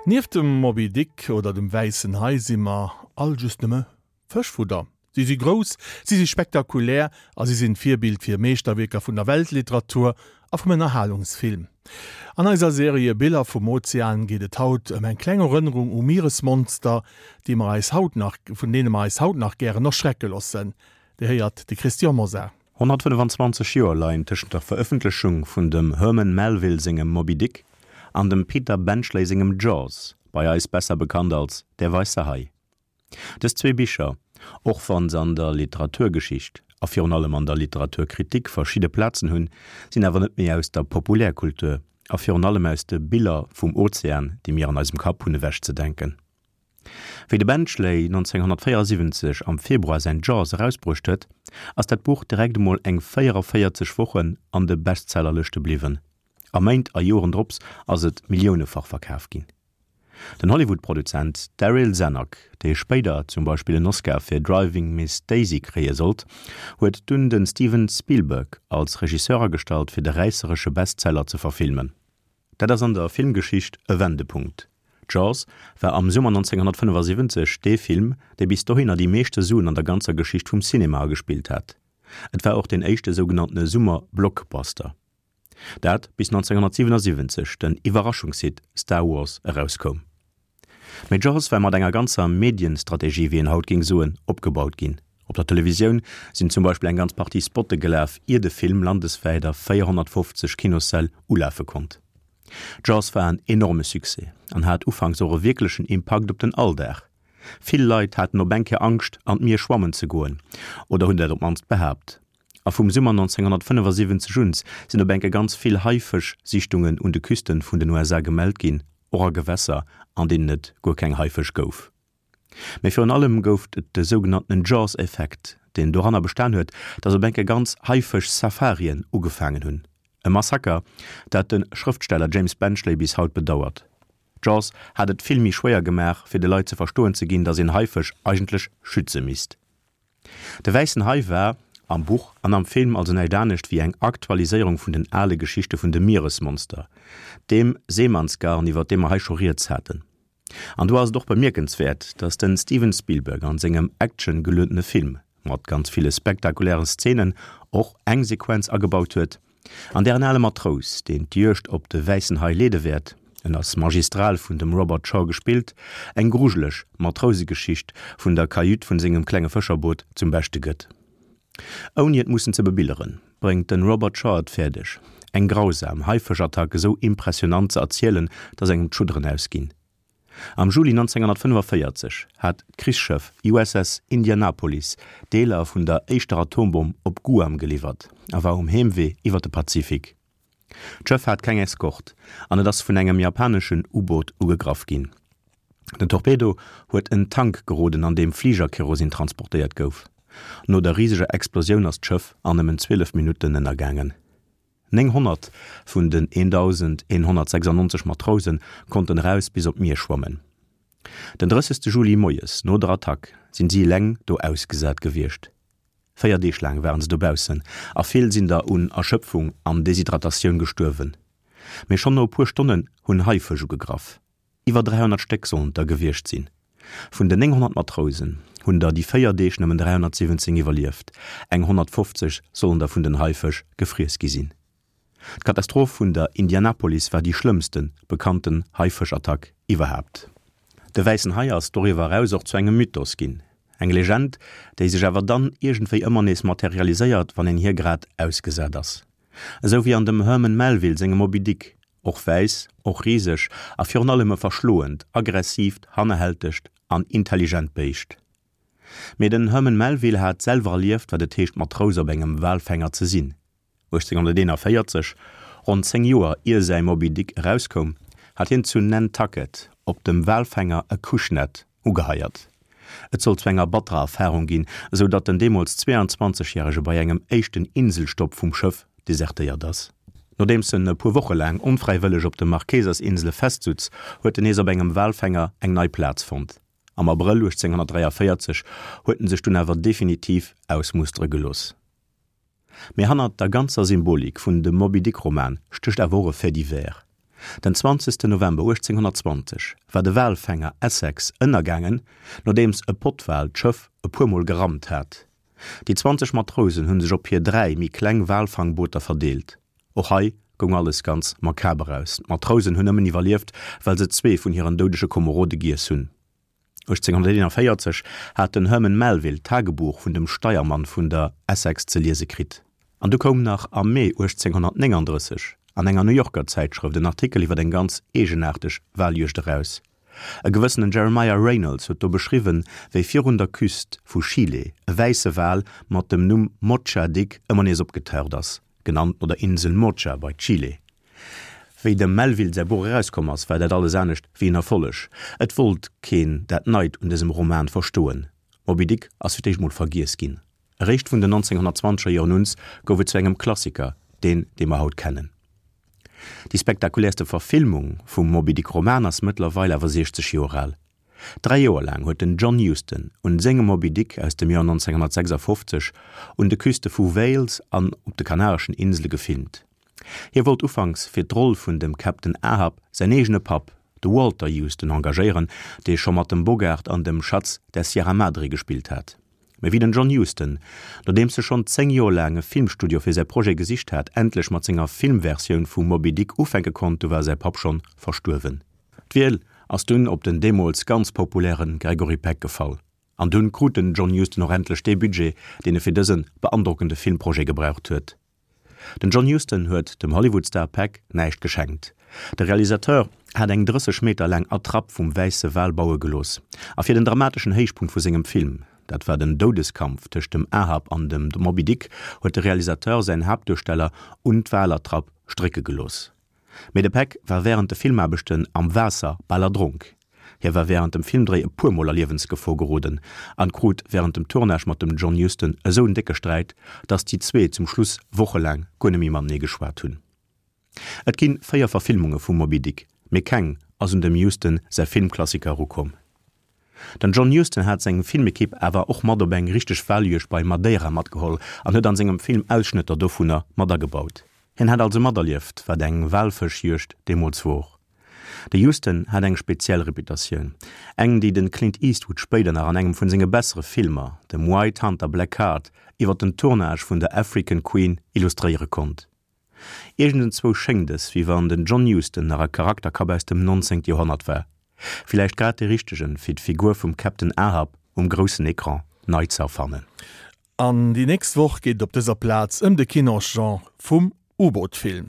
Nieft dem Moby Dick oder dem Wäissen Hai si mer all just nëmme Fëschfudder. Si si grouss, si si spektakulär a si sinn d'Virbild fir Meeschterwierker vun der Weltliteratur a vum Ënnerhalungsfilm. An eiser Serie Biller vum Ozean geet et haut ëm eng kleng Erënnerung u Mieresmonster, déi mer eis haut nach, vun deene mer eis haut nach gären erschrecke loossen. Dir héiert de Christian Mosar. 125 Joer leien tëschent der Verëffentlechung vun dem Herman Melville sengem Moby Dick an dem Peter Benchley sengem Jaws, bei eis besser bekannt als Der weisse Hai. Dës zwee Bicher, och wann se an der Literaturgeschicht a virun allem an der Literaturkritik verschidde Plazen hunn, sinn awer net méi aus der Populärkultur a virun allem aus de Biller vum Ozean, déi mir an eisem Kapp hunn, ewechzedenken. Wéi de Benchley 1974 am Februar säin Jaws erausbruecht huet, ass dat Buch direkt emol eng 44 Wochen an de Bestsellerlëschte bliwwen a Méint a Joren drops ass et milliounefach verkaf ginn. Den Hollywood-Produzent Darryl Zanuck, dee spéider zum Beispill en Oscar fir Driving Miss Daisy kréie sollt, huet dunn de Steven Spielberg als Regisseur agestallt fir de räisseresche Bestseller ze verfilmen. Dat ass an der Filmgeschicht e Wendepunkt. Jaws war am Summer 1975 dee Film, dee bis dohinner déi meeschte Suen an der ganzer Geschicht vum Cinema agespillt hat. Et war och deen éischte sougenanntene Summer-Blockbuster. Dat bis 1977 den Iwwerraschungshit Star Wars erauskoum. Mee Jaws war mat enger ganzer Medienstrategie, wéi een haut géing soen, opgebaut ginn. Op der Televisioun sinn zum Beispill eng ganz Partie Spotte gelaf, ier de Film landeswäit a 450 Kinossäll ulafe konnt. Jaws war en enorme Succès an hat ufanks och e wierklechen Impakt op den Alldag. Vill Leit haten op eng Kéier Angscht an d'Mier schwammen ze goen, oder hunn dat op d'mannst behaapt. A vum Summer 1975 un sinn op enke ganz vill Haifësch-Sichtungen un de Küsten vun den USA gemellt ginn, och a Gewässer, an deenen et guer keng Haifësch gouf. Mee virun allem gouf et de sougenanntenen Jaws-Effekt, deen doranner bestan huet, datt op enke ganz Haifësch-Safarien ugefaangen hunn. E Massaker, dat de Schrëftsteller James Benchley bis haut bedauert. Jaws hat et vill méi schwéier gemaach, fir de Leit ze verstoen ze ginn, datt een Haifësch eigentlech schütze misst. De wäissen Hai war, am Buch an am Film, also näischt anescht wéi eng Aktualiséierung vun den ale Geschichte vun de Mieresmonster, deem Seemannsgarn, iwwer dee mer hei scho rieds haten. An do ass et och bemierkenswäert, datt den Steven Spielberg an sengem actiongeluedene Film, mat ganz ville spektakulären Szenen, och eng Sequenz agebaut huet, An där en ale Matrous, deen d'Juegd op de wäissen Hai leede wäert, en ass magistral vun dem Robert Shaw gespillt, eng grujeleg Matrousegeschicht vun der Kajüt vun sengem klenge Fëscherboot zum Beschte gëtt. Ouni et mussen ze bebilderen, bréngt de Robert Shaw et fäerdeg, eng grausam Haifëschattack esou impressionant ze erzielen, dass engem d'Schudderen ausginn. Am Juli 1945 hat d'Krichsschëff USS Indianapolis Deeler vun der éischter Atombomm op Guam geliwwert a war um Heemwee iwwer de Pazifik. D'Schëff hat keng Eskort an et ass vun engem japaneschen U-Boot ugegraff ginn. Den Torpedo huet en Tank geroden an deem Fligerkerosin transportéiert gouf. No der riseger Explosioun ass d'Schëff an nëmmen 12 Minutten ënnergaangen. 900 vun den 1.196 Matrouse konnten eraus bis op d'Mier schwammen. Den 30 Juli moies no der Attack sinn si eleng do ausgesat gewiescht. 4 Deeg laang waren se dobaussen a vill sinn der un Erschëpfung an Deshydratatioun gestuerwen. Mee schonn no e puer Stonnen hunn Haifësch ugegraff. Iwwer 300 Stéck sollen et der gewiescht sinn. Vun den 900 Matrousen hunn der déi 4 Deeg nëmmen 317 iwwerlieft, eng 150 sollen der vun den Haifësch gefriess gi sinn. D'Katastroph vun der Indianapolis war déi schlëmmste bekannten Haifëschattack iwwerhaapt. De wäissen Hai ass doriwwer eraus och zu engem Mythos ginn, eng Legend, déi sech awer dann iergendwéi ëmmer nees materialiséiert, wann een hir grad ausgesat ass. Esou wéi an dem Herman Melville sengem Moby Dick, Och wäiss, och riseg a virun allem e verschloent, aggressiivt, hannerhältegt an intelligent Béischt. Mee den Herman Melville hat selwer erlieft, wat et heescht Matrous op engem Walfänger ze sinn. 1841, ronn 10 Joer ier säi Moby Dick erauskoum, hat hien zu Nantucket op dem Walfänger Acushnet ugeheiert. Et sollt zu enger batterer Erfarung ginn, esou datt den deemools 22 Järege bei engem éischten Inselstopp vum Schëff desertéiert ass. Nodeems en e puer Woche laang onfräiwëlleg op de Marquesas-Insele festsutz, huet en nees op engem Walfänger eng nei Plaz fonnt. Am Abrëll 1843 huet en sech dunn awer definitiv ausmustere gelooss. Mee hannert der ganzer Symbolik vun dem Moby-Dick-Roman stécht awer och e Fait divers. Den 20 November 1820 war de Walfänger Essex ënnergaangen, nodeems e Pottwal d'Schëff e puer Mol gerammt hat. Déi 20 Matrousen hu sech op hir 3 méi kleng Walfangbooter verdeelt. Och hei goung alles ganz makaber aus, d'Matrousen hunn nëmmen iwwerlieft, well se zwee vun hiren doudege Komerode giess hunn. 1841 hat den Herman Melville d'Tagebuch vun dem Steiermann vun der Essex ze liese kritt. An du koum nach am Mee 1839 an enger New Yorker Zäitschrëft en Artikel iwwer eng ganz eegenaarteg Waljuegd eraus. E gewëssenen Jeremiah Reynolds huet do beschriwwen, wéi virun der Küst vu Chile e wäisse Wal mat dem Numm Mocha Dick ëmmer nees opgetaucht ass, genannt no der Insel Mocha bei Chile. Wéi dem Melville säi Buch erauskomm ass, war dat alles anescht wéi en Erfolleg. Et wollt keen dat Neit un dësem Roman verstoen. Moby Dick ass fir d'éischt mol vergiess ginn. Eréischt vun den 1920er Joren uns gouf et zu engem Klassiker, deen, dee mer haut kennen. Déi spektakuläerste Verfilmung vum Moby Dick Roman ass mëttlerweil awer 60 Joer al. Dräi Joer laang huet den John Huston un sengem Moby Dick aus dem Joer 1956 un de Küste vu Wales an op de Kanareschen Insele gefilmt. Hie wollt ufanks fir d'Roll vun dem Captain Ahab säin eegene Papp, de Walter Huston, engagéieren, dee scho mat dem Bogart an dem Schatz der Sierra Madre gespillt hat. Mee wéi den John Huston, nodeems e schonn 10 Joer laang e Filmstudio fir säi Projet gesicht hat, endlech mat senger Filmversioun vu Moby Dick ufänke konnt, du war säi Papp schonn verstuerwen. D'Wiel ass dunn op den deemools ganz populäre Gregory Peck gefall. An dunn krut den John Huston och endlech dee Budget, deen e fir dëse beandrockende Filmprojet gebraucht huet. Den John Huston huet dem Hollywood-Star Peck näischt geschenkt. De Realisateur hat eng 30 Meter laang Attrapp vum wäisse Wal baue gelooss. A fir den dramateschen Héichpunkt vu sengem Film, dat war den Doudeskampf tëscht dem Ahab an dem Moby Dick, huet de Realisateur säin Haaptduersteller un d'Walattrapp strécke gelooss. Mee de Peck war wärend de Filmaarbechten am Waasser bal erdronk. Hie war wärend dem Filmdréi e puer Mol a Liewensgefor geroden an krut wärend dem Tournage mat dem John Huston esou en décke Sträit, datt déi zwee zum Schluss wochelaang guer net méi matenee geschwat hunn. Et ginn 4 Verfilmunge vum Moby Dick, mee keng ass un dem Huston säi Filmklassiker erukomm. Den John Huston hat seng Filmekipp awer och mat op eng richteg Waljuegd bei Madeira matgeholl an huet an sengem Film Ausschnëtter dovunner mat agebaut. Hien hat also materlieft, wat eng Walfëschjuegd deemools wor. De Huston hat eng speziell Reputatioun, eng déi den Clint Eastwood spéider nach an engem vun senge bessere Filmer, dem White Hunter Black Heart, iwwer den Tournage vun der African Queen illustréiere konnt. Iergendenzwou schéngt es, wéi wann den John Huston nach e Charakterkapp aus dem 19. Joerhonnert war. Villäicht grad dee richtegen, fir d'Figur vum Captain Ahab um groussen Ecran nei ze erfannen. An déi nächst Woch geet et op dëser Plaz ëm de Kinosgenre vum U-Boot-Film.